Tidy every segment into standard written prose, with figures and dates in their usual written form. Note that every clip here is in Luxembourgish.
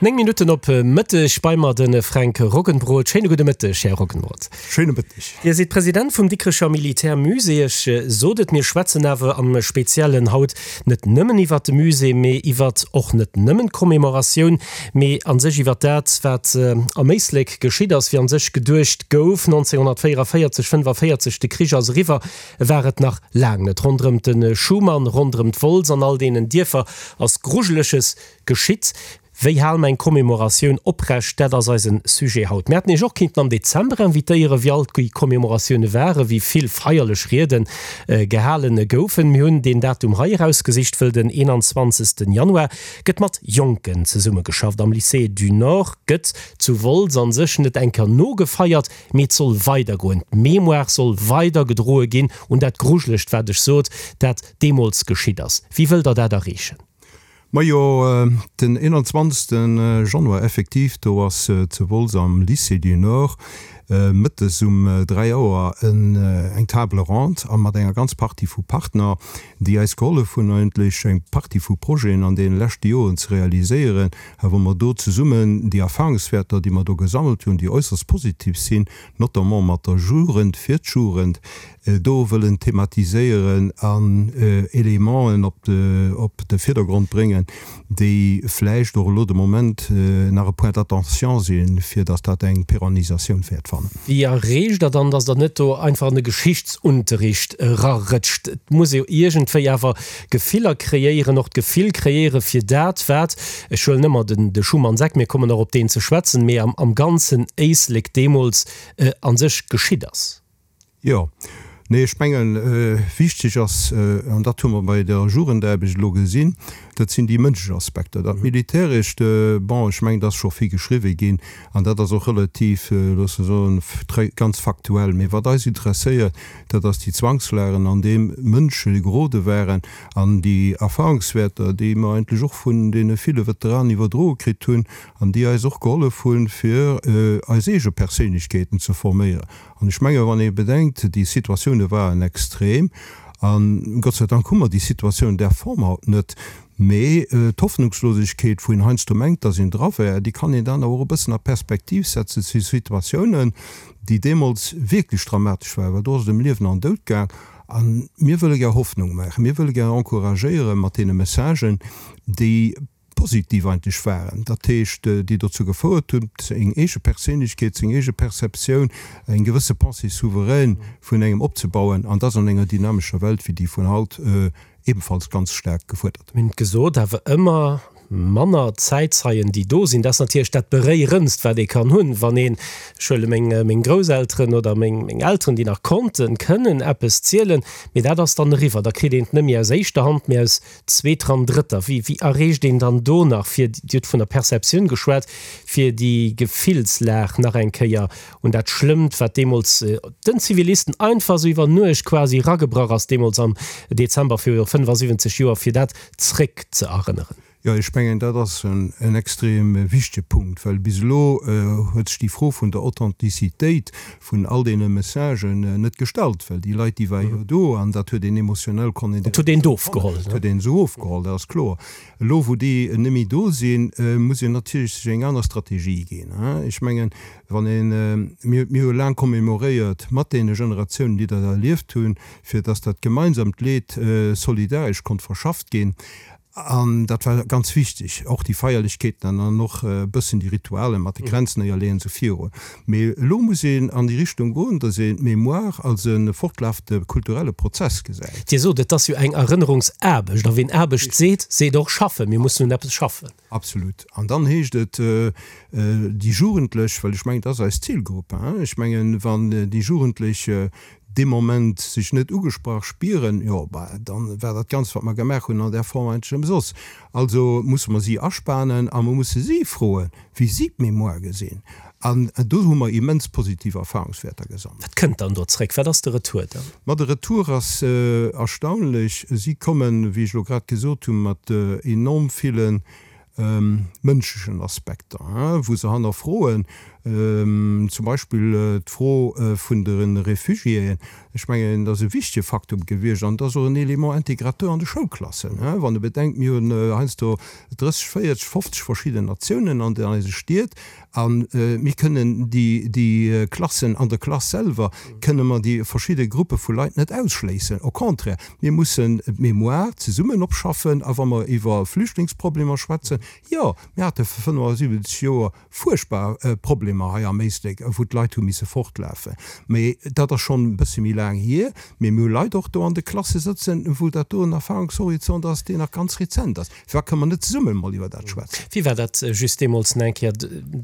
9 Minutten op Mëtteg, bei mer de Fränk Roggenbrot. Schéine gudde Mëtteg, Här Roggenbrot. Schéine Mëtteg. Dir sidd President vum Dikrecher Militärmusée. Ech sot et, mir schwätzen awer am Speziellen haut net nëmmen iwwert de Musée, mee iwwert och net nëmmen d'Commémoratioun, mee a sech iwwert dat, wat am Éislek geschitt ass, wéi a sech geduecht gouf 1944, 45, de Krich ass eriwwer, war et nach laang net. Ronderëm de Schuman, ronderëm d'Wolz an all deenen Dierfer ass Grujeleches geschitt. Wéi hale mer eng Commémoratioun oprecht? Dat ass eisen Sujet haut. Mir hätten Iech och kinnten am Dezember invitéieren, wéi all déi Commémoratioune waren, wéi vill feierlech Riede gehale goufen. Mir hunn deen Datum hei erausgesicht, wëll den 21. Januar gëtt mat Jonken zesummegeschafft. Am Lycée du Nord gëtt zu Wolz an sech net eng Kéier nogefeiert, mee et soll weidergoen. D'Mémoire soll weidergedroe ginn un dat Grujelegt, wat ech sot, dat deemools geschitt ass. Wéi wëllt Der dat erreechen? Majo, den 21. Januar effektiv, do ass zu Wolz am Lycée du Nord mëttes um 3 Auer eng Table ronde a mat enger ganz Partie vu Partner, déi eis gehollef hunn eigentlech eng Partie vu Projeten an deene leschte Joren ze realiséieren, a wou mer do zesummen déi Erfahrungswäerter, déi mer do gesammelt hunn, déi äusserst positiv sinn, notamment mat der Jugend, fir d'Jugend, do wëllen thematiséieren an Élémenten op de Virdergrond bréngen, déi vläicht och elo de Moment nach e Point d'attention sinn, fir datt dat eng Pérennisatioun wäert fannen. Wéi erreecht Der dann, datt Der net do einfach an e Geschichtsunterricht erarëtscht? Et muss ee jo iergendwéi awer Gefiller kreéieren, och d'Gefill kreéiere fir dat, wat, ech huelen ëmmer de Schumann-Eck, mir kommen nach op deen ze schwätzen, mee am ganzen Éislek deemools a sech geschitt ass. Jo. Nee, ech mengen, wichteg ass, an dat hu mer bei der Jugendaarbecht elo gesinn, dat sinn déi mënschlech Aspekter. Dat Militärescht, bon, ech mengen, et ass scho vill geschriwwe ginn an dat ass och relativ, loosse mer soen, ganz faktuell. Mee wat eis interesséiert, dat ass déi Zwangslagen, an deem Mënsche gerode waren an déi Erfahrungswäerter, déi mer eigentlech och vun deene ville Veteranen iwwerdroe kritt hunn an déi eis och gehollef hunn, fir eis eege Perséinlechkeeten ze forméieren. An ech menge wann ee bedenkt, déi Situatioune waren extrem, a Gott sei Dank hu mer déi Situatioun an där Form haut net, mee d'Hoffnungslosegkeet, wou een heiansdo mengt, datt een dra wär, déi kann een dann awer och e bëssen a Perspektiv setzen zu Situatiounen, déi deemools wierklech dramatesch waren, well do ass et ëm Liewen an Doud gaang. A mir wëlle gär Hoffnung maachen, mir wëlle gär encouragéiere mat deene Messagen, déi positiv eigentlech waren, dat heescht, déi dozou gefouert hunn, seng eege Perséinlechkeet, seng eege Perceptioun, eng gewësse Pensée souveraine vun engem opzebauen, an dat ass an enger dynamescher Welt wéi déi vun haut ebenfalls ganz staark gefuerdert. Mir hunn et gesot, awer ëmmer manner Zäitzeien, déi do sinn. Dat ass natierlech dat Beréierendst, wat ee kann hunn, wann een, ech huele meng, meng Grousselteren oder meng, meng Elteren, déi nach konnten, kënnen eppes zielen, mee dat ass dann eriwwer, da kritt een et net méi aus éischter Hand, mee aus Zweeter an drëtter, wéi, wéi erreecht een dann do nach, fir, Dir hutt vun der Perceptioun geschwat, fir déi Gefillslag nach eng Kéier un dat Schlëmmt, wat deemools den Zivilisten einfach esou iwwer Nuecht quasi eragebrach ass, deemools am Dezember viru 75 Joer, fir dat zréck ze erënneren? Jo, ech mengen, dat ass en extrem wichtege Punkt, well bis elo huet sech déi Fro vun der Authentizitéit vun all deene Messagen net gestallt, well déi Leit, déi ware jo do an dat huet een emotionell konnt een Dat huet een ofgeholl. Dat huet een esou ofgeholl, dat ass kloer. Elo wou déi net méi do sinn, muss een natierlech sech eng aner Strategie ginn. Ech mengen, wann een, mir, mir hu laang commémoréiert mat deene Generatiounen, déi dat erlieft hunn, fir datt dat gemeinsamt Leed solidaresch konnt verschafft ginn. An dat war ganz wichteg, och déi Feierlechkeeten an dann och e bëssen déi Ritualen mat de Kränz néierleeën esou virun. Mee elo muss een an déi Richtung goen, datt een d'Mémoire als e fortlaafende kulturelle Prozess gesäit. Dir sot, et ass jo eng Erënnerungsaarbecht. A ween Aarbecht seet, seet och schaffen. Mir mussen un eppes schaffen. Absolut. An dann heescht et, déi Jugendlech, well ech mengen, dat ass eis Zilgrupp, ech mengen, wann déi Jugendlech dee Moment sech net ugesprach spieren, jo, bah, dann war dat Ganzt, wat mer gemaach hunn, an där Form eigentlech ëmsoss. Also musse mer si aspanen a mer musse si froen, wéi si d'Mémoire gesinn. An do hu mer immens positiv Erfahrungswäerter gesammelt. Wat kënnt dann do zréck? Wat ass de Retour dann? Ma de Retour ass erstaunlech. Si kommen, wéi ech elo grad gesot hunn, mat enorm villen. mënschlechen Aspekter, wou se hannerfroen, zum Beispill d'Fro vun de Refugiéen. Ech mengen, dat ass e wichtege Faktum gewiescht an et ass och en Élément intégrateur an de Schoulklassen. Wann e bedenkt, mir hunn heiansdo 30, 40, 50 verschidden Natiounen an eise Stied a mir kënnen déi Klassen, an der Klass selwer kënne mer déi verschidde Gruppe vu Leit net ausschléissen. Au contraire, mir mussen d'Mémoire zesummen opschaffen a wa mer iwwer Flüchtlingsproblemer schwätzen, jo, mir hate 75 Joer fuerchtbar Problemer hei am Éislek, wou d'Leit hu misse fortlafen. Mee dat ass schonn e bësse méi laang hier. Mee mir hu Leit och do an de Klasse sëtzen, wou dat do en Erfahrungshorizont ass, deen nach ganz rezent ass. Firwat kënne mer net zesumme mol iwwer dat schwätzen? Wéi war dat just deemools nach eng Kéier?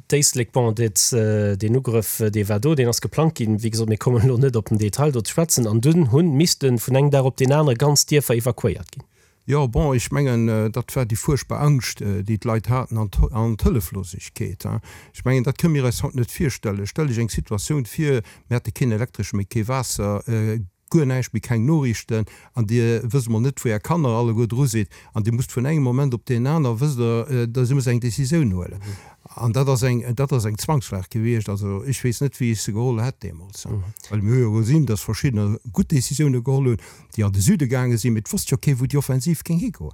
D'Éislek, bon, deen Ugrëff, dee war do, deen ass geplangt ginn. Wéi gesot, mir kommen elo net op den Detail do ze schwätzen. An dunn hu misste vun engem Dag op deen anere ganz Dierfer evakuéiert ginn. Jo, bon, ech mengen, dat war déi fuerchtbar Angscht, déi d'Leit haten an d'Hëlleflosegkeet. Ech mengen, dat kënne mir eis haut net virstellen. Stellt Iech eng Situatioun vir, mir hätte keen Elektresch méi, kee Waasser, guer näischt méi, keng Noriichten an Dir wësst emol net, wou Är Kanner alleguer dru sidd an Dir musst vun engem Moment op deen aner, wësst Der, da si muss eng Décisioun huelen. An dat ass eng, dat ass eng Zwangsfrag gewiescht. Also ech weess net, wéi ech se geholl hätt deemools, well mir hu jo gesinn, dass verschiddener gutt Décisioune geholl hunn, déi an de Süde gaange sinn, mee et wosst jo kee wou déi Offensiv géing higoen.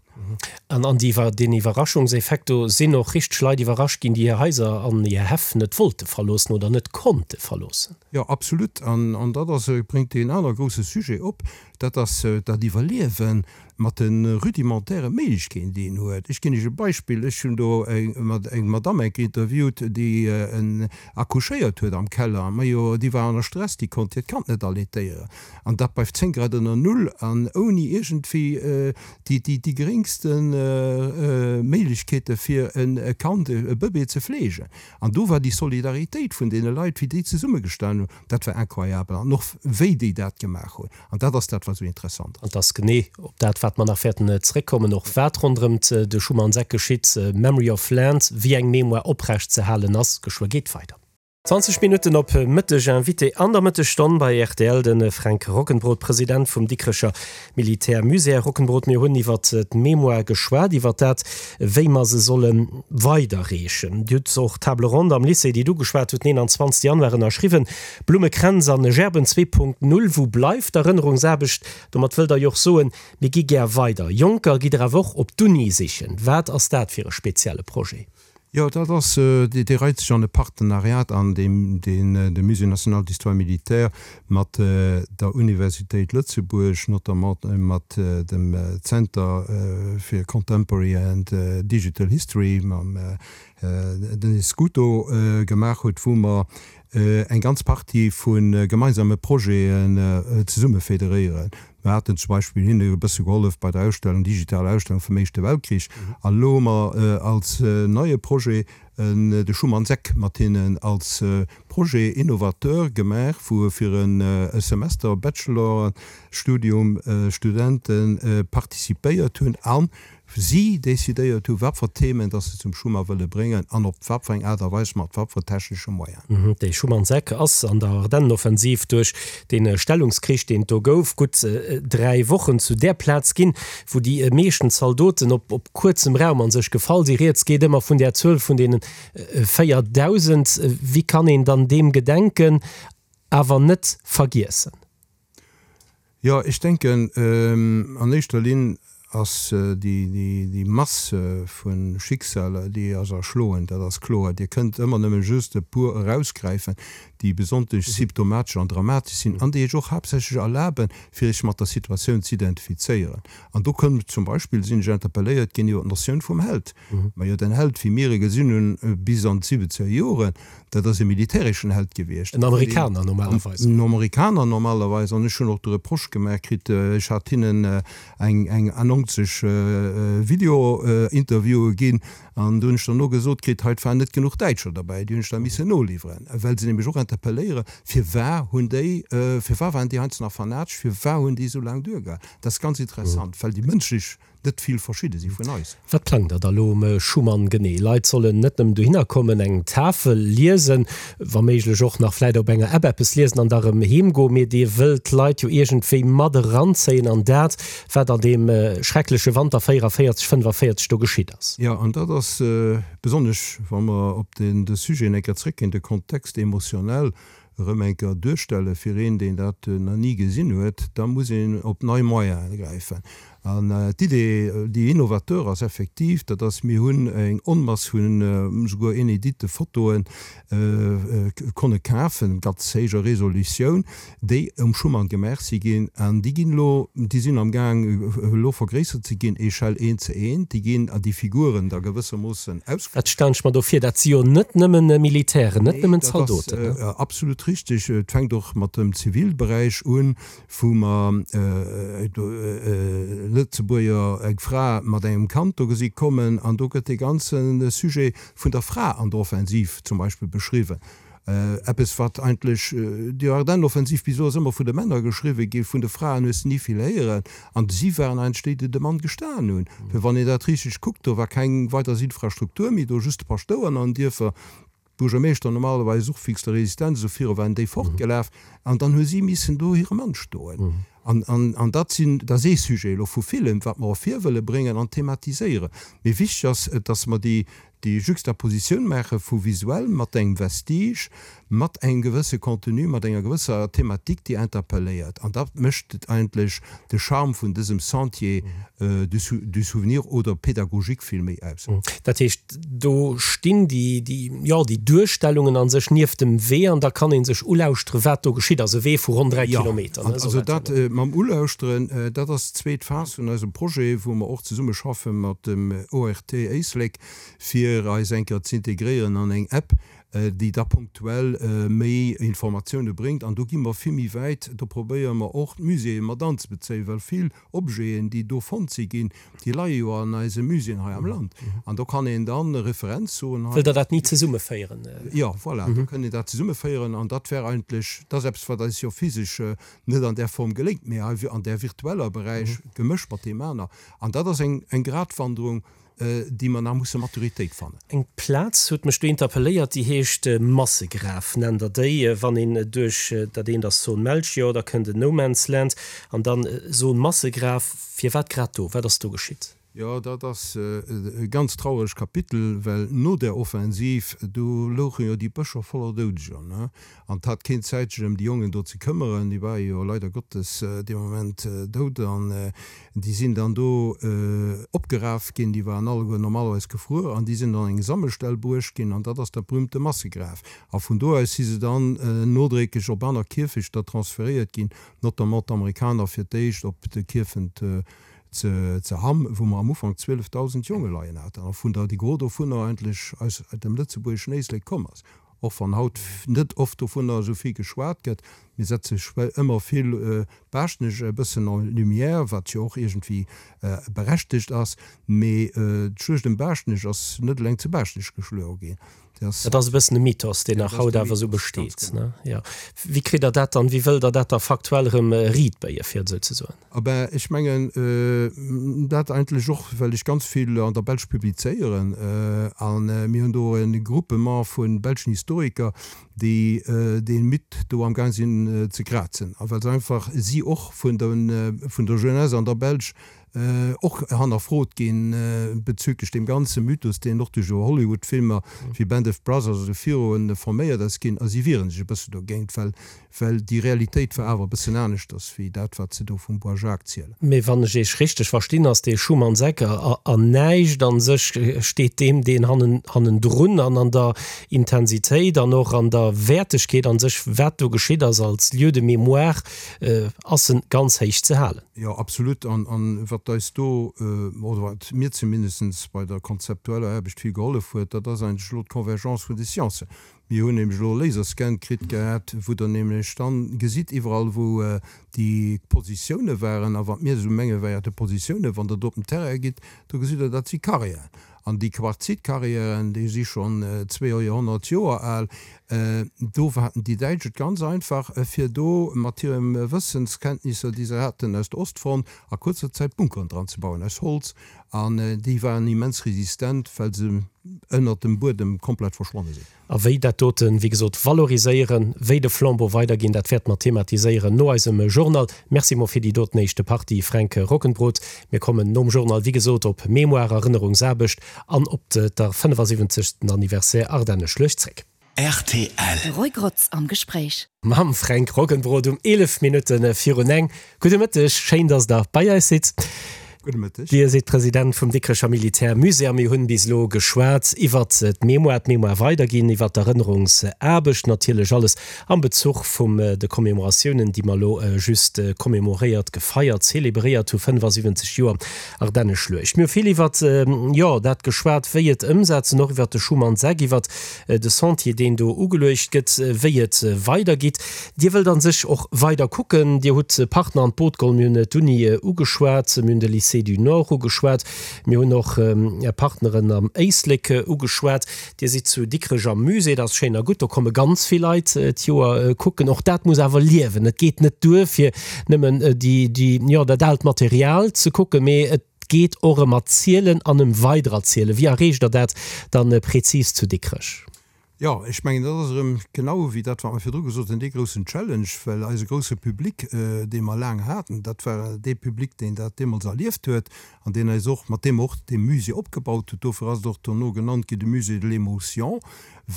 An an déi deen Iwwerraschungseffekt, do sinn och richteg Leit iwwerrascht ginn, déi hir Haiser an hir Häff net wollte verloossen oder net konnte verloossen. Jo, absolut. An an dat ass, bréngt deen aner grousse Sujet op, dat ass dat Iwwerliewen mat de rudimentäre Méiglechkeeten, déi een huet. Ech ginn Iech e Beispill, Ech hunn do eng eng Madamm eng Kéier interviewt, déi en accouchéiert huet am Keller. Majo, déi war ënner Stress, déi konnt hiert Kand net allaitéieren. An dat bei 10 Grad ënner Null an ouni iergendwéi déi geréngste Méiglechkeete fir e Kand, e Bëbee ze fleegen. An do war déi Solidaritéit vun deene Leit, wéi déi zesummegestan hunn, dat war incroyabel. An och wéi déi dat gemaach hunn. An dat ass dat, wat esou interessant ass. An 't ass genee op dat, wat mer nach wäerten zeréckkommen, och wat ronderëm de Schumanns Eck geschitt, Memory of Land, wéi eng Mémoire oprecht ze halen ass. Geschwë geet weider. 20 Minutten op Mëtteg, Invité an der Mëttesstonn bei rtl, de Fränk Roggenbrot, President vum Dikrecher Militärmusée. Här Roggenbrot, mir hunn iwwert d'Mémoire geschwat, iwwert dat, wéi mer se solle weiderreechen. Dir hutt och d'Table ronde am Lycée, déi et ugeschwat hutt, den 21 Januar ënnerschriwwen. Blummekränz an Gerben 2.0, wou bleift d'Erënnerungsaarbecht? Domat wëllt Der jo och soen, mir gi gär weider. Jonker gitt Der awer och op d'Uni sichen. Wat ass dat fir e spezielle Projet? Jo, dat ass, dee reit sech an e Partenariat an, deen de Musée national d'histoire militaire mat der Universitéit Lëtzebuerg, notamment mat dem Zenter fir Contemporary and Digital History mam Denis Scuto gemaach huet, wou mer eng ganz Partie vu gemeinsame Projeten zesumme federéieren. Mir haten zum Beispill hinne e bësse gehollef bei der Ausstellung, digitaler Ausstellung vum Éischte Weltkrich. An elo hu mer als neie Projet de Schumann's Eck mat hinnen als Projet innovateur gemaach, wou fir e Semester Bachelorstudium Studente participéiert hunn an si decidéiert hu wat fir Themen dass se zum Schuman wëlle bréngen an op wat fir eng Aart a Weis, mat wat fir technesche Moyen. De Schumannseck ass an der Ardennenoffensiv duerch dee Stellungskrich, deen et do gouf, gutt 3 Wochen zu där Plaz ginn, wou déi meeschten Zaldoten op op kuerzem Raum a sech gefall sinn. Rieds geet ëmmer vun där Zuel vun deenen 4.000. Wéi kann een dann deem gedenken, awer net vergiessen? Jo, ech denken, an éischter Linn ass déi Mass vu Schicksaler, déi ass erschloen, dat ass kloer. Dir kënnt ëmmer nëmme just e puer erausgräifen, déi besonnesch symptomatesch an dramatesch sinn an déi Iech och haaptsächlech erlaben, fir Iech mat der Situatioun z'identifizéieren. An do kënnt zum Beispill, sinn ech interpelléiert ginn iwwer d'Notioun vum Held. Majo, den Held, wéi mir e gesinn hunn bis an d'siwwenzeger Joren, Dat ass e militäreschen Held gewiescht. En Amerikaner normalerweis. En Amerikaner normalerweis. An ech hunn och de Reproche gemaach kritt, ech hat hinnen eng eng 90 Video-Interviewe ginn an do hunn ech dann och gesot kritt, hei et waren net genuch Däitscher derbäi. Déi hunn ech da missen noliwweren, well se nämlech och interpelléieren, firwar hunn déi, firwar waren déi heiansdo nach fanatesch, firwar hunn déi esou laang duergehalen. Dat ass ganz interessant, well déi mënschlech net vill verschidde si vun eis. Wat plangt der da lo um Schuman genee? Leit sollen net nëmmen dohinner kommen, eng Tafel liesen, wa méiglech och nach vläit op enger App eppes liesen an da rëm heem goen, mee Dir wëllt d'Leit jo iergendwéi mat eranzéien an dat, wat an deem. schreckleche Wanter 44, 45 do geschitt ass. Jo, an dat ass besonnesch, wa mer op den de Sujet eng Kéier zréckginn, de Kontext émotionnel erëm eng Kéier duerstelle fir een, deen dat nach ni gesinn huet, da muss een op nei Moyene gräifen. An d'Idee, déi innovateur ass effektiv, dat ass, mir hunn eng Onmass vun esouguer inédite Fotoe konne kafen, ganz héijer Resolutioun, déi um Schuman gemaach si ginn. An déi ginn elo, déi sinn amgaang elo vergréissert ze ginn, Échelle eent ze eent, déi ginn an déi Figuren da gewëssermoossen ausgeschafft. Wat stellen ech mer do vir? Dat si jo net nëmmen Militären, net nëmmen Zaldoten, ne? Dat ass absolut richtig. Et fänkt och mat dem Zivilberäich un. wou mer Lëtzebuerger eng Fra mat engem Kand do gesi kommen, an do gëtt dee ganze Sujet vun der Fra an der Offensiv zum Beispill beschriwwen. Eppes, wat eigentlech, déi Ardennes-Offensiv bis elo ass ëmmer vun de Männer geschriwwen ginn, vun de Fraen hues de ni vill héieren, an si waren eigentlech déi, déi de Mann gestan hunn. Well wann een dat richteg kuckt, do war keng weider Infrastruktur méi do, just de Paschtouer an den Dierfer. Buergermeeschter normalerweis och wéinst der Resistenz esou viru waren déi fortgelaf an dann hu si missen do hire Mann stoen. An, an, an dat sinn, dat ass ee Sujet elo vu villen, wat mer ervir wëlle bréngen an thematiséieren. Mee wichteg ass, dass mer déi, déi Juxtapositioun maache vu visuell mat engem Vestige, mat engem gewësse Contenu, mat enger gewësser Thematik, déi interpelléiert. An dat mécht et eigentlech de Charme vun dësem Sentier du souvenir oder pédagogique villméi aus. Dat heescht, do stinn déi, déi, jo, déi Duerstellungen a sech nieft dem Wee an da kann ee sech ulauschteren, wat do geschitt ass. E Wee vu ronn 3 Kilometer, ne? Also dat mam Ulauschteren, dat ass d'zweet Phas vun eisem Projet, wou mer och zesumme schaffe mat dem ORT Éislek, fir eis eng Kéier z'integréieren an eng App, déi da punktuell méi Informatioune bréngt. An do gi mer vill méi wäit, do probéiere mer och d'Muséeë mat anzebezéien, well vill Objeten, déi do fonnt si ginn, déi leie jo an eise Muséeën hei am Land. An do kann een dann Referenz soen, hei. Wëllt Der dat ni zesummeféieren? Jo, voilà, do kënnt een dat zesummeféieren. An dat wär eigentlech, dat ass eppes, wat eis jo physesch net an där Form geléngt, mee hei an där virtueller Beräich gemëscht mat deem aner. An dat ass eng Gratwanderung, déi mer nach musse Maturitéit fannen. Eng Plaz huet mech do interpelléiert, déi heescht Massegraf, nennt Der déi. Wann een duerch dat eent ass Zone Melchior, da kënnt en No Man's Land an dann Zone Massegraf. Firwat grad do? Wat ass do geschitt? Jo, dat ass e ganz trauregt Kapitel, well no där Offensiv, do louche jo déi Bëscher voller Doudeger, ne? An 't hat keen Zäit sech ëm déi Jongen do ze këmmeren, déi ware jo leider Gottes dee Moment dout an déi sinn dann do opgeraf ginn, déi waren alleguer normalerweis gefruer an déi sinn an eng Sammelstell bruecht ginn an dat ass dat berühmte Massegraf. A vun do aus si se dann nodréiglech op aner Kierfechter transferéiert ginn, notamment d'Amerikaner fir d'éischt op de Kierfent ze Hamm, wou mer am Ufank 12.000 Jonge leien haten a vun der déi Gros dovunner eigentlech aus dem lëtzebuergeschen Éislek komm ass. Och wann haut net oft dovunner esou vill geschwat gëtt, mir setze ëmmer vill Baaschtnech e bëssen en lumière, wat jo och iergendwéi berechtegt ass, mee d'Schluecht ëm Baaschtnech ass net eleng zu Baaschtnech geschloe ginn. Dat ass e bëssen e Mythos, deen nach haut awer esou besteet, ne? Jo. Wéi kritt Der dat dann, wéi wëllt Der dat da faktuell erëm riitbéien, fir et esou ze soen? Abä, ech mengen dat eigentlech och, well ech ganz vill an der Belsch publizéieren. A mir hunn do e Groupement vu belschen Historiker, déi dee Mythe do amgaang sinn ze krazen. A well se einfach si och vun der Jeunesse an der Belsch och hannerfrot ginn bezüglech deem ganze Mythos, deen och duerch esou Hollywood-Filmer wéi Band of Brothers esou viru forméiert ass ginn. A si wiere sech e bësse dogéint, well Well déi Realitéit war awer e bëssen aneschters wéi dat, wat se do vum Bois Jacques zielen. Mee wann ech Iech richteg verstinn, ass dee Schumann's Eck an näischt a sech steet deem, deen hannendrun an an der Intensitéit an och an der Wäertegkeet a sech, wat do geschitt ass, als Lieu de mémoire, ass en ganz héich ze halen. Jo, absolut. An wat eis do, oder wat mir zumindest bei der konzeptueller Aarbecht vill gehollef huet, dat ass eigentlech elo d'Convergence vun de Sciencen. Mir hunn nämlech elo e Laserscan kritt gehat, wou Der nämlech dann gesitt, iwwerall wou déi Positioune waren, a wat mir esou menge wäerte Positiounen, wann Der do op den Terrain gitt, do gesitt Der, dat si Carrièren. An déi Quarzitcarrièren, déi si schonn 200 Joer al. Do haten déi Däitsch et ganz einfach, fir do mat hirem Wëssenskenntnisser, déi se haten aus der Ostfront, a kuerzer Zäit Bunkeren dran ze bauen aus Holz. An déi waren immens resistent, well se. ënnert dem Buedem komplett verschwonne sinn. A wéi dat doten, wéi gesot, valoriséieren, wéi de Flambeau weiderginn, dat wäerte mer thematiséieren no eisem Journal. Merci mol fir déi doten éischte Partie, Fränk Roggenbrot. Mir kommen nom Journal, wéi gesot, op Mémoire, Erënnerungsaarbecht an op der 75. Anniversaire Ardenneschluecht zréck. Rtl. De Roy Grotz am Gespréich. Mam Fränk Roggenbrot um 11 Minutte virun eng. Gudde Mëtteg, schéin dass der bei eis sidd. Gudde Mëtteg. Dir sidd President vum Dikrecher Militärmusée a mir hunn bis elo geschwat iwwert d'Mémoire, d'Mémoire weiderginn, iwwert d'Erënnerungsaarbecht, natierlech alles am Bezuch vum de Commemoratiounen, déi mer elo just commemoréiert, gefeiert, zelebréiert hu, 75 Joer Ardenneschluecht. Mir hu vill iwwert, jo, dat geschwat, wéi et ëmsetzen, och iwwert de Schumann-Seck, iwwert de Sentier, deen do ugeluecht gëtt, wéi et weidergeet. Dir wëllt a sech och weider kucken. Dir hutt Partner an d'Boot geholl. Mir hunn d'Uni ugeschwat, mir hunn de Lycée du Nord ugeschwat, mir hunn och Är Partneren am Éislek ugeschwat. Dir sidd zu Dikrech am Musée, dat ass schéin a gutt, do komme ganz vill Leit d'Joer kucken. Och dat muss awer liewen. Et geet net duer, fir nëmmen déi, jo, dat aalt Material ze kucken, mee et geet och ëm Erzielen an ëm Weidererzielen. Wéi erreecht Der dat dann prezis zu Dikrech? Jo, ech mengen, dat ass erëm genau wéi dat, wat mer virdru gesot hunn, dee groussen Challenge, well eise grousse Public, dee mer laang haten, dat war dee Public, deen dat deemools erlieft huet an deen eis och, mat deem mer och dee Musée opgebaut hutt. Dofir ass et och dono genannt gi de Musée de l'émotion,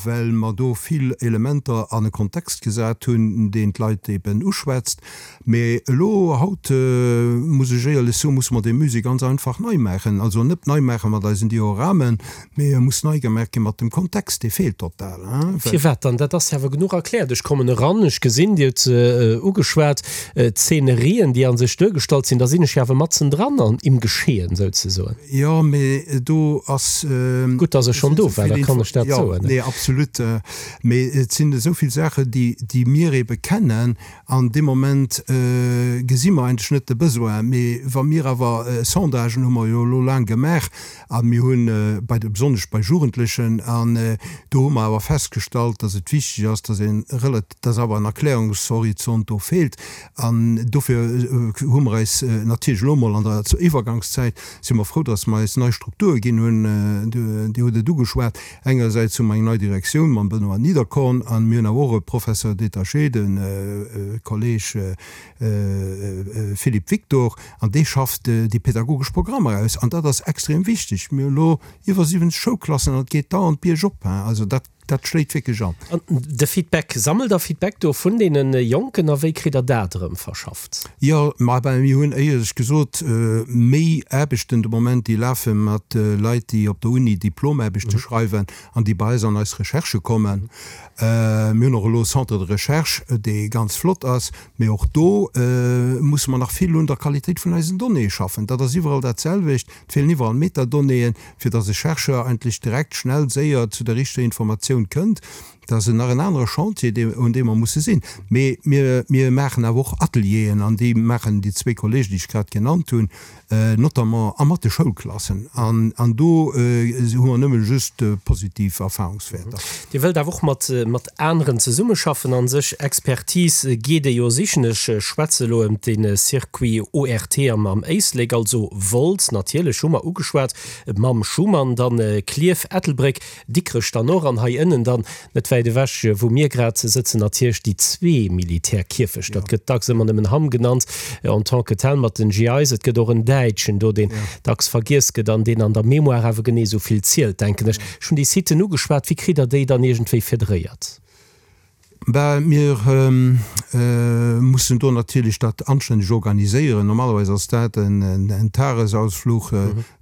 well mer do vill Elementer an e Kontext gesat hunn, deen d'Leit eben uschwätzt. Mee elo, haut, muss ech éierlech soen, musse mer dee Musée ganz einfach nei maachen. Also net nei maache mat eisen Dioramen, mee e muss nei gemaach gi mat dem Kontext, dee feelt total. Firwat dann? Dat ass jo awer genuch erkläert. Ech kommen eran, ech gesinn, Dir hutt se ugeschwat, d'Szenerien, déi a sech duergestallt sinn, da sinn ech jo awer matzendran an im Geschehen souzesoen. Jo, mee do ass. Gutt, dass ech schonn do war, da kann ech dat soen. Jo, nee, absolut. Mee et sinn esou vill Saachen, déi, déi mir ebe kennen. An dee Moment gesi mer eigentlech net de Besoin. Mee wa mir awer, Sondagen hu mer jo elo laang gemaach, a mir hunn bei de, besonnesch bei Jugendlechen, an do hu mer awer festgestallt, dass et wichteg ass, dass ee relat, dass awer en Erklärungshorizont do feelt. An dofir hu mer eis natierlech elo emol an der Iwwergangszäit, si mer frou, dass mer eis nei Strukture ginn hunn. Dir hutt et ugeschwat, engersäits hu mer eng nei Direktioun mam Benoît Niederkorn a mir hunn awer och e Professeur détaché, de Kolleg Philippe Victor, an dee schafft déi pedagogesch Programmer aus. An dat ass extrem wichteg. Mir hunn elo iwwer 70 Schoulklassen an et geet dauernd biergop. Also dat Dat schléit wierklech an. An de Feedback, sammelt der Feedback do vun deene Jonken a wéi kritt der dat erëm verschafft? Jo, ma ben mir hunn éierlech gesot méi Aarbechten de Moment, déi lafe mat Leit, déi op der Uni Diplomaarbechte schreiwen an déi bei eis an eis Recherche kommen. Mir hunn och elo e Centre de recherche, dee ganz flott ass, mee och do musse mer nach vill un der Qualitéit vun eisen Donnéeë schaffen. Dat ass iwwerall dat selwecht, et feelen iwwerall Metadonnéeën. fir dass e Chercheur eigentlech direkt schnell, séier zu der richteger Informatioun kënnt. Dat ass nach en anere Chantier, dee, un deem mer musse sinn. Mee mir, mir maachen awer och Atelieren, an déi maachen déi zwee Kollegen, déi ech grad genannt hunn, notamment a mat de Schoulklassen. An, an do hu mer nëmme just positiv Erfahrungswäerter. Dir wëllt awer och mat, mat aneren zesummeschaffen a sech Expertise geet ee jo sichen. Ech schwätze elo ëm de Circuit ORT am am Éislek, also Wolz natierlech hu mer ugeschwat, mam Schuman, dann Klierf, Ettelbréck, Dikrech dann och an hei ënnen dann net wäit ewech wou mir grad sëtzen natierlech déi zwee Militärkierfechter. Dat gëtt dacks ëmmer nëmmen Hamm genannt en tant que tel mat den GIs. Et gëtt och en däitschen do, deen dacks vergiess gëtt an deen an der Mémoire awer genee esou vill zielt, denken ech. Ech hunn déi Siten ugeschwat. Wéi kritt Der déi dann iergendwéi federéiert? Ben, mir mussen do natierlech dat anstänneg organiséieren. Normalerweis ass dat en Tagesausflug,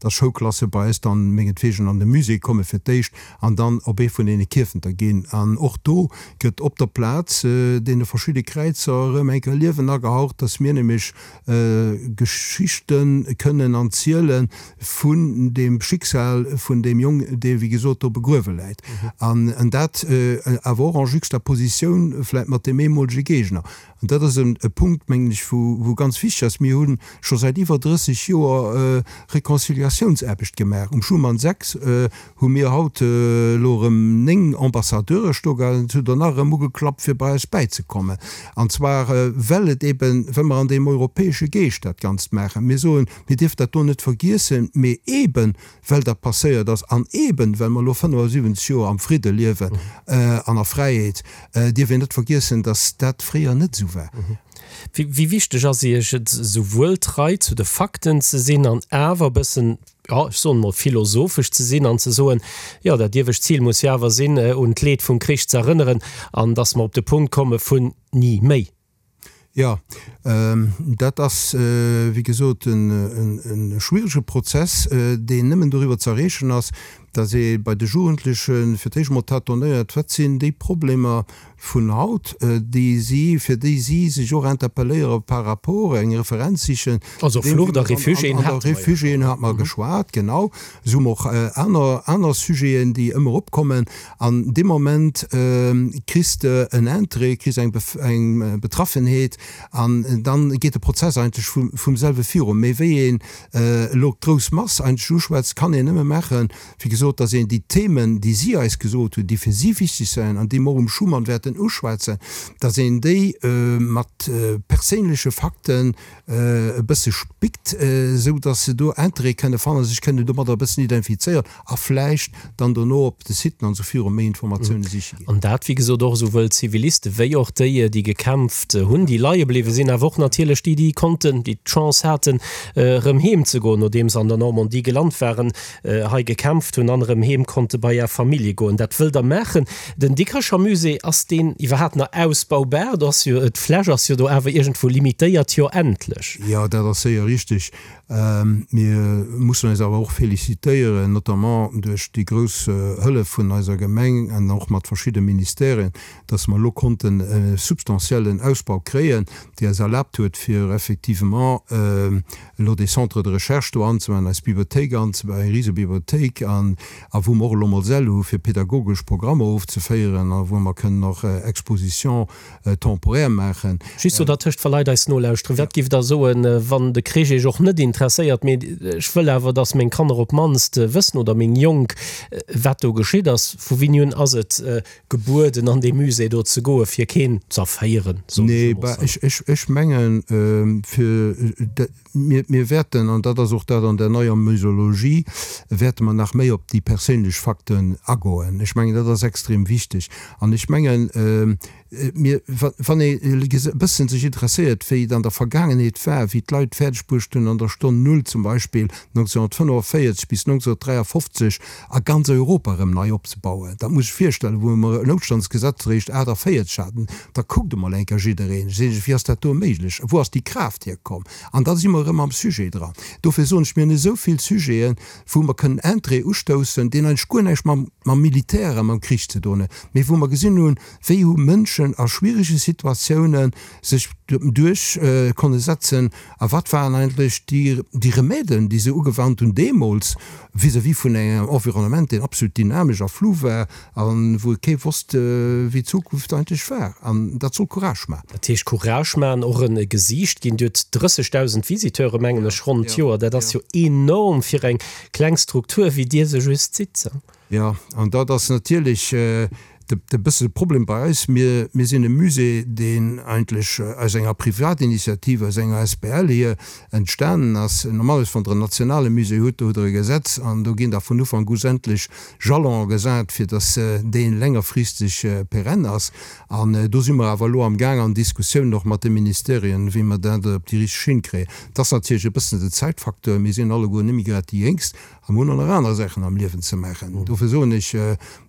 dass Schoulklasse bei eis dann mengetwegen an de Musée komme fir d'éischt an dann op ee vun deene Kierfenter ginn. An och do gëtt op der Plaz deene verschidde Kräizer erëm eng Kéier Liewen agehaucht, dass mir nämlech Geschichte kënnen erziele vun deem Schicksal vun deem Jong, dee wéi gesot do begruewe läit. An dat awer och en Juxtapositioun vläicht mat deem eemolege Géigner. An dat ass e Punkt, mengen ech, wou ganz wichteg ass. Mir hu scho säit iwwer 30 Joer Reconciliatiounsaarbecht gemaach. Um Schuman 6 hu mir haut elo erëm 9. meng Ambassadeure stoe gehalen, et huet der nach erëm ugeklappt fir bei eis bäizekommen. An zwar well et eben, well mer an deem europäesche Geescht dat Ganzt maachen. Mir soen, mir dierfen dat do net vergiessen, mee eben well dat passéiert ass an eben well mer elo 75 Joer am Fridde liewen an a Fräiheet, dierf een net vergiessen, datt dat fréier net esou war. Wéi wichteg ass Iech et, esouwuel trei zu de Fakten ze sinn an awer e bëssen, jo, ech soen emol philosophesch ze sinn an ze soen, jo, dat iewescht Zil muss jo awer sinn, un d'Leed vum Krich ze erënneren an datt mer op de Punkt komme vun ni méi? Jo, dat ass, wéi gesot, e schwierege Prozess, deen nëmmen doriwwer ze erreechen ass, datt ee bei de Jugendleche fir d'éischt emol tâtonnéiert, Wat sinn déi Problemer vun haut, déi si, fir déi si sech och interpelléiere par rapport, eng Referenz sichen. Also Flucht a Refugiéen hate mer jo. Refugiéen hate mer geschwat, genau. Esou hu mer och aner, aner Sujeten, déi ëmmer opkommen. An dee Moment kriss de en Interêt, kriss eng eng Betraffenheet an dann geet de Prozess eigentlech vum vum selwe virun. Mee wéi een elo d'grouss Mass eigentlech uschwätzt, kann een nëmme maachen, wéi gesot, datt een déi Themen, déi si eis gesot hunn, déi fir si wichteg sinn an déi mer och um Schuman wäerten uschwätzen, datt een déi mat perséinleche Fakten e bësse spickt, esou datt se do Interêt kënne fannen, sech kënne domadder e bëssen identifizéieren a vläicht dann dono op de Siten an esou viru méi Informatioune siche ginn. An dat, wéi gesot, och esouwuel d'Ziviliste wéi och déi, déi gekämpft hunn, déi leie bliwwe sinn, awer och natierlech déi, déi konnten, déi d'Chance haten, erëm heem ze goen, nodeem se an der Normandie gelant waren, hei gekämpft hunn an erëm heem konnte bei är Famillje goen. Dat wëllt Der maachen. Den Dikrecher Musée, ass deen iwwerhaapt nach ausbaubar? Do ass jo, d'Fläch ass jo do awer iergendwou limitéiert, jo endlech. Jo, dat ass séier richteg. Mir mussen eis awer och félicitéieren, notamment duerch déi grouss Hëllef vun eiser Gemeng an och mat verschidde Ministèren, dass mer elo konnten e substantiellen Ausbau kréien, dee eis erlaabt huet, fir effectivement elo dee Centre de recherche do anzebauen, eis Bibliothéik anzebauen, eng rise Bibliothéik, an a wou mer och elo mol Säll hu fir pedagogesch Programmer ofzeféieren a wou mer kënnen och Expositions temporaires maachen. Just sou dertëscht, wa Leit eis nolauschteren, Wat giff Der soen, wann de Krich Iech och net interesséiert, mee ech wëll awer, dass meng Kanner op d'mannst wëssen, oder meng Jonk, wat do geschitt ass? Vu wéini un ass et gebueden, an dee Musée do ze goen, fir keen z'erféieren, soen ech emol sou? Nee, ech mengen, fir, mir, mir wäerten, an dat ass och dat an der neier Museologie, wäerte mer nach méi op déi perséinlech Fakten agoen. Ech mengen, dat ass extrem wichteg. An ech mengen, mir, wann ee e bëssen sech interesséiert, wéi et an der Vergaangenheet war, wéi d'Leit fäerdeg bruecht hunn, an der Stonn Null zum Beispill 1945 bis 1953 a ganz Europa erëm nei opzebauen, dat muss ech virstellen, wou mer e Noutstandsgesetz eréischt 48 haten, da kuckt emol eng Kéier jiddereen, seet sech, wéi ass dat do méiglech, wou ass déi Kraaft hierkomm? An da si mer erëm am Sujet dran. Dofir soen ech, mir hunn esou vill Sujeten, wou mer kënnen Interêt ustoussen, deen eigentlech guer näischt mam mam Militär a mam Krich ze doen huet, mee wou mer gesinn hunn, wéi hu Mënschen a schwierege Situatiounen sech duerch konne setzen a wat waren eigentlech déi déi Remèden, déi se ugewannt hunn deemools vis-à-vis vun engem Environnement, deen absolut dynamesch a flou war a wou kee wosst, wéi d'Zukunft eigentlech war. An dat soll Courage maachen. Dat heescht Courage maachen, och e Gesiicht ginn. Dir hutt 30.000 Visiteure mengen ech ronn d'Joer. Dat ass jo enorm fir eng kleng Struktur, wéi Dir se just sidd. Jo, an dat ass natierlech de bësse de Problem bei eis. Mir, mir sinn e Musée, deen eigentlech aus enger Privatinitiative, aus enger asbl hier entstanen ass. Normalerweis, wann Der en nationale Musée hutt, do hutt Der e Gesetz an do ginn da vun Ufank u sämtlech Jalone gesat, fir datt dee längerfristeg pérenne ass. An do si mer awer elo amgaang an Diskussiounen och mat de Ministerien, wéi mer dat op déi richteg Schinn kréien. Et ass natierlech e bëssen den Zäitfacteur. Mir sinn alleguer net méi grad déi Jéngst A mir hunn och nach aner Saachen am Liewen ze maachen. Dofir soen ech,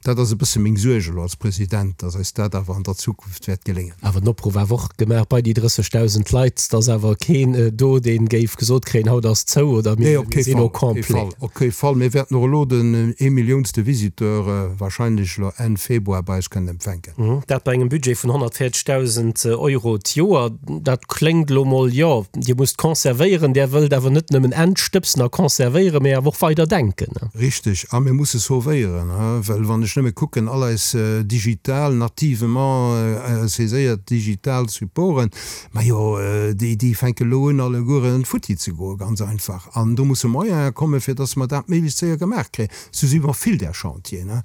dat ass e bësse meng Suerg elo als President, dass eis dat awer an der Zukunft wäert geléngen. Awer den Opruff awer och gemaach bei déi 30.000 Leit, et ass awer keen do, dee géif gesot kréien, haut ass zou oder mir sinn au complet. Op kee Fall. Mir wäerten och elo den eemilliounste Visiteur wahrscheinlech elo Enn Februar bei eis kënnen empfänken. Dat bei engem Budget vun 140.000 Euro d'Joer. Dat kléngt elo mol, jo, Dir musst conservéieren, Där wëllt awer net nëmmen entstëbsen a conservéieren, mee awer och weider denken. Richteg, a mir musse sauvéieren, well wann ech nëmme kucken, all eis digital, nativement saiséiert digital Supporten, majo, déi, déi fänke elo un allegueren futti ze goen, ganz einfach. An do musse Moyene kommen, fir dass mer dat méiglechst séier gemaach kréien. Sou si mer vill där Chantieren.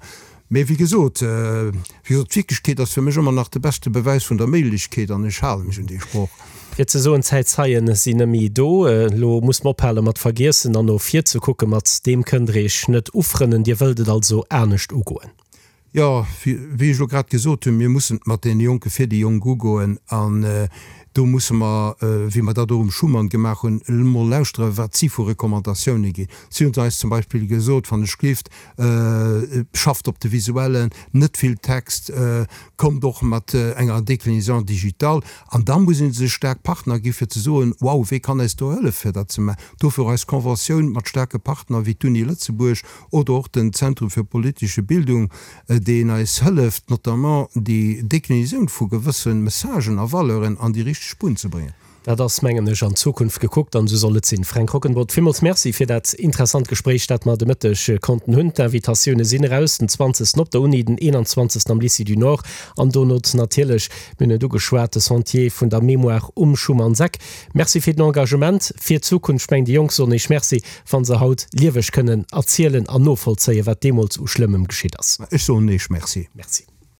Mee wéi gesot, wéi gesot, d'Wierklechkeet ass fir mech ëmmer nach de beste Bewäis vun der Méiglechkeet an ech hale mech un dee Sproch. Fir ze soen, d'Zäitzeien sinn nëmmi do, elo muss mer ophale mat vergiessen an no vir ze kucken. Mat deem kënnt Der Iech net ufrënnen. Dir wëllt et also anescht ugoen? Jo, wéi ech elo grad gesot hunn, mir mussen et mat deene Jonke fir déi Jonk ugoen an do musse mer, wéi mer dat och um Schuman gemaach hunn, emol lauschteren, wat si vu Recommandatioune ginn. Si hunn eis zum Beispill gesot, wann ech gleeft, Schafft op de Visuellen, net vill Text, kommt och mat enger Déclinaison digitale. An da muss ee sech staark Partner gi fir ze soen, wow, wee kann eis do hëllef fir dat ze maachen. Dofir och eis Conventioun mat staarke Partner wéi d'Uni Lëtzebuerg oder och den Zentrum für politische Bildung, deen eis hëlleft, notamment déi Déclinaison vu gewësse Messagen a Valeuren an déi richteg Bunn ze bréngen. Dat ass, mengen ech, an d'Zukunft gekuckt an esou soll et sinn. Fränk Rockenbrod, villmools Merci fir dat interessant Gespréich, dat mer de Mëtteg konnten hunn. D'Invitatioune sinn eraus, den 20. op der Uni, den 21. am Lycée du Nord an dono natierlech, mir hunn et ugeschwat, de Sentier vun der Mémoire um Schumannseck. Merci fir den Engagement fir d'Zukunft. Ech mengen, déi Jonk soen Iech Merci, wa se haut lieweg kënnen erzielen an novollzéien, wat deemools u Schlëmmem geschitt ass. Ech soen Iech Merci. Merci.